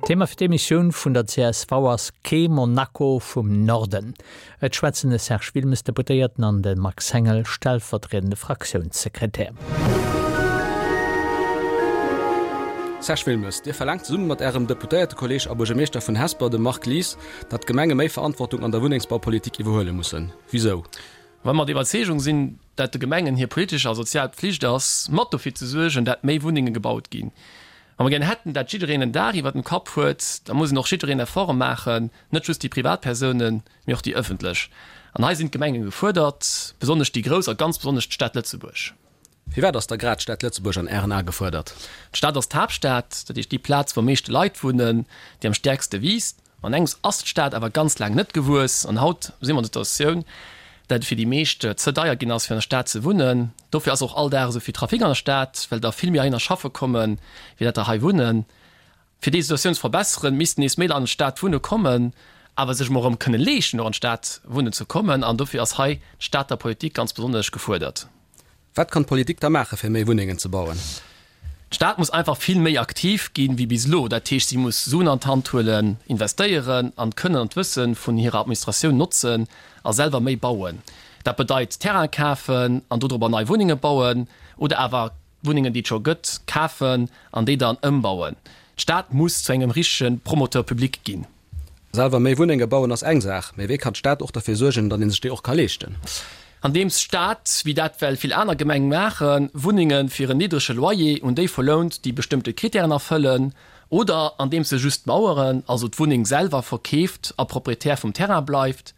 Thema fir d'Emissioun vun der csv ass Kee Monaco vum Norden. Et schwätzen de Serge Wilmes, Deputéierten, an de Max Hengel, stellvertriedende Fraktiounssekretär. Serge Wilmes, Dir verlaangt zesumme mat Ärem Deputéiertekolleeg a Buergermeeschter vun Hesper, dem Marc Lies, datt d'Gemenge méi Verantwortung an der Wunnengsbaupolitik iwwerhuele mussen. Wisou? Well mer der Iwwerzeegung sinn, dat de Gemengen hir politesch a sozial Pflicht ass, mat dofir ze suergen, dat méi Wunnenge gebaut ginn. Wa mer gären hätten, dat jiddereen en Daach iwwer dem Kapp huet, da muss en och jiddereen Efforte maachen, net just déi Privatpersounen, mee och déi ëffentlech. An hei sinn d'Gemenge gefuerdert, besonnesch déi grouss a ganz besonnesch d'Stad Lëtzebuerg. Firwat ass da grad d'Stad Lëtzebuerg an Ären Ae gefuerdert? D'Stad ass d'Haaptstad, dat heescht déi Plaz, wou am meeschte Leit wunnen, déi am stäerkste wiisst. An engems ass d'Stad awer ganz laang net gewuess an haut si mer an der Situatioun, dat et fir déi meescht ze deier ginn ass, fir an der Stad ze wunnen. Dofir ass och all Dag esou vill Trafic an der Stad, well der vill méi heihinner schaffe kommen, wéi dat der hei wunnen. Fir déi Situatioun ze verbesseren, missten nees méi Leit an d'Stad wunne kommen, awer sech emol erëm kënne leeschten, och an d'Stad wunnen ze kommen. An dofir ass hei d'Stater Politik ganz besonnesch gefuerdert. Wat kann d'Politik da maache fir méi Wunnengen ze bauen? D'Stad muss einfach vill méi aktiv ginn, wéi bis elo. Dat heescht, si muss Suen an d'Hand huelen, investéieren an d'Kënnen an d'Wësse vun hirer Administratioun notzen a selwer méi bauen. Dat bedeit Terraine kafen an dodrobber nei Wunnenge bauen oder awer Wunnengen, déi et scho gëtt, kafen an déi dann ëmbauen. D'Stad muss zu engem richtege Promoteur public ginn. Selwer méi Wunnenge bauen ass eng Saach, mee wéi kann d'Stad och derfir suergen, datt ee sech déi och ka leeschten? Andeems d'Stad, wéi dat well vill aner Gemeng maachen, Wunnenge fir en niddrege Loyer un déi verlount, déi bestëmmte Kritären erfëllen, oder andeems se just d'Maueren, also d'Wunneng selwer, verkeeft a Proprietär vum Terrain bleift.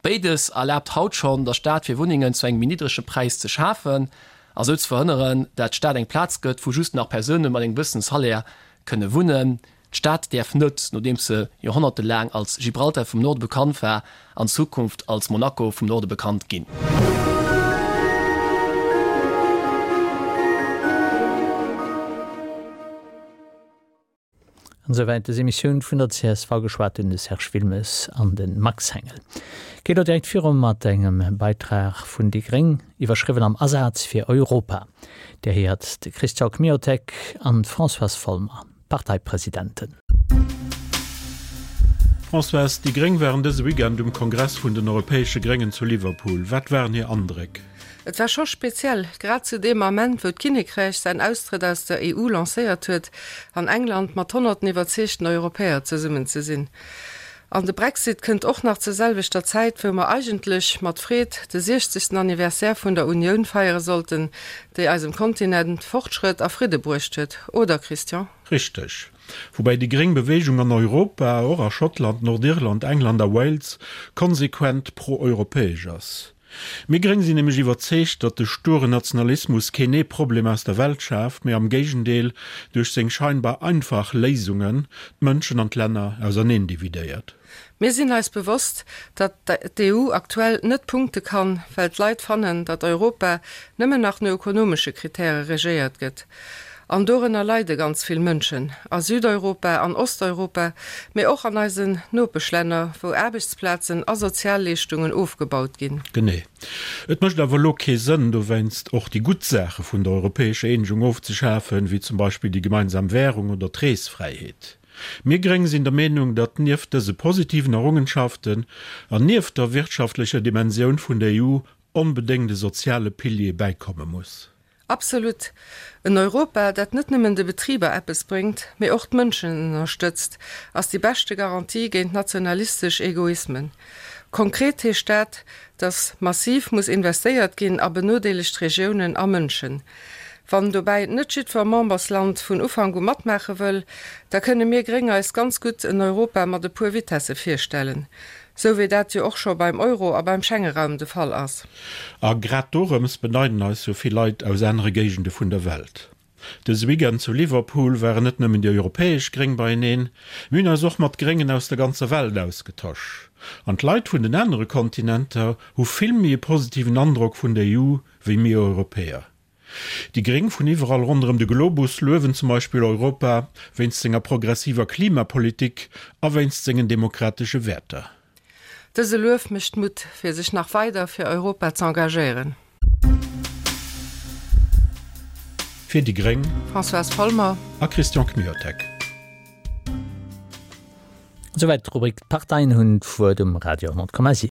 Béides erlaabt haut schonn der Stad fir Wunnengen zu engem méi niddrege Präis ze schafen a sou ze verhënneren, dat d'Stad eng Plaz gëtt, wou just nach Persoune mat engem gewëssene Salaire kënne wunnen. D'Stad däerf net, nodeems se joerhonnertelaang als Gibraltar vum Norde bekannt war, an Zukunft als Monaco vum Norde bekannt ginn. An esouwäit des Emissioun vun der csv. Geschwat hunn de Serge Wilmes an de Max Hengel. Geet elo direkt viru mat engem Beitrag vun déi gréng, iwwerschriwwen Am Asaz fir Europa. Dir héiert de Christian Kmiotek an d'Françoise Folmer. Parteipresidenten. Françoise, déi gréng waren dëse Weekend um Kongress vun den europäesche Gréngen zu Liverpool. Wat waren hir Andréck? Et war scho speziell, grad zu deem Ament, wou d'Kinnekräich säin Austrëtt aus der EU lancéiert huet, an England mat honnerten iwwerzeegten Europäer zesummen ze sinn. An de Brexit kënnt och nach zur selwechter Zäit, wou mer eigentlech mat Freed de siechzegsten Anniversaire vun der Unioun feiere sollten, déi eisem Kontinent Fortschrëtt a Fridde bruecht huet, oder Christian? Richteg. Woubäi déi gréng Beweegung an Europa, och a Schottland, Nordirland, England a Wales, konsequent pro-europäesch ass. Mir Gréng sinn nämlech iwwerzeegt, datt de sturen Nationalismus keen ee Problem aus der Welt schaaft, mee am Géigendeel duerch seng scheinbar einfach Léisungen d'Mënschen an d'Länner auserneen dividéiert. Mir sinn eis bewosst, datt d'EU aktuell net punkte kann, well d'Leit fannen, datt Europa nëmmen nach no ökonomesche Kritäre regéiert gëtt. An dorënner leide ganz vill Mënschen, a Südeuropa, an Osteuropa, mee och an eisen Nopeschlänner, wou Aarbechtsplazen a Sozialleeschtungen ofgebaut ginn. Genee. Et mécht awer elo kee Sënn, dowéinst och déi gutt Saache vun der europäescher Eenegung ofzeschafen, wéi zum Beispill déi gemeinsam Währung oder d'Reesfräiheet. Mir Gréng sinn der Meenung, datt nieft dëse positiven Errungenschaften an nieft der wirtschaftlecher Dimensioun vun der EU onbedéngt e soziale Pilier bäikomme muss. Absolut! En Europa, dat net nëmmen de Betriber eppes bréngt, mee och d'Mënschen ënnerstëtzt, ass déi beschte Garantie géint nationalistesch Egoismen. Konkret heescht dat, datt massiv muss investéiert ginn a benodeelegt Regiounen a Mënschen. Wann dobäi net jiddwer Membersland vun Ufank u matmaache wëll, da kënne mir Gréng eis ganz gutt en Europa mat e puer Vitesse virstellen. Sou wéi dat jo och scho beim Euro a beim Schengeraum de Fall ass. A grad dorëms beneiden eis jo vill Leit aus anere Géigende vun der Welt. Dëse Weekend zu Liverpool waren net nëmmen déi europäesch Gréng beieneen, mir hunn eis och mat Gréngen aus der ganzer Welt ausgetosch. An d'Leit vun den anere Kontinenter hu vill méi e positiven Androck vun der EU wéi mir Europäer. Déi Gréng vun iwwerall ronderëm de Globus luewen zum Beispill Europa wéinst senger progressiver Klimapolitik a wéinst sengen demokratesche Wäerter. Dëse Luef mécht Mutt, fir sech nach weider fir Europa z'engagéieren. Fir déi gréng, Françoise Folmer a Christian Kmiotek. Souwäit d'Rubrik D'Parteien hunn d'Wuert um Radio 10,7.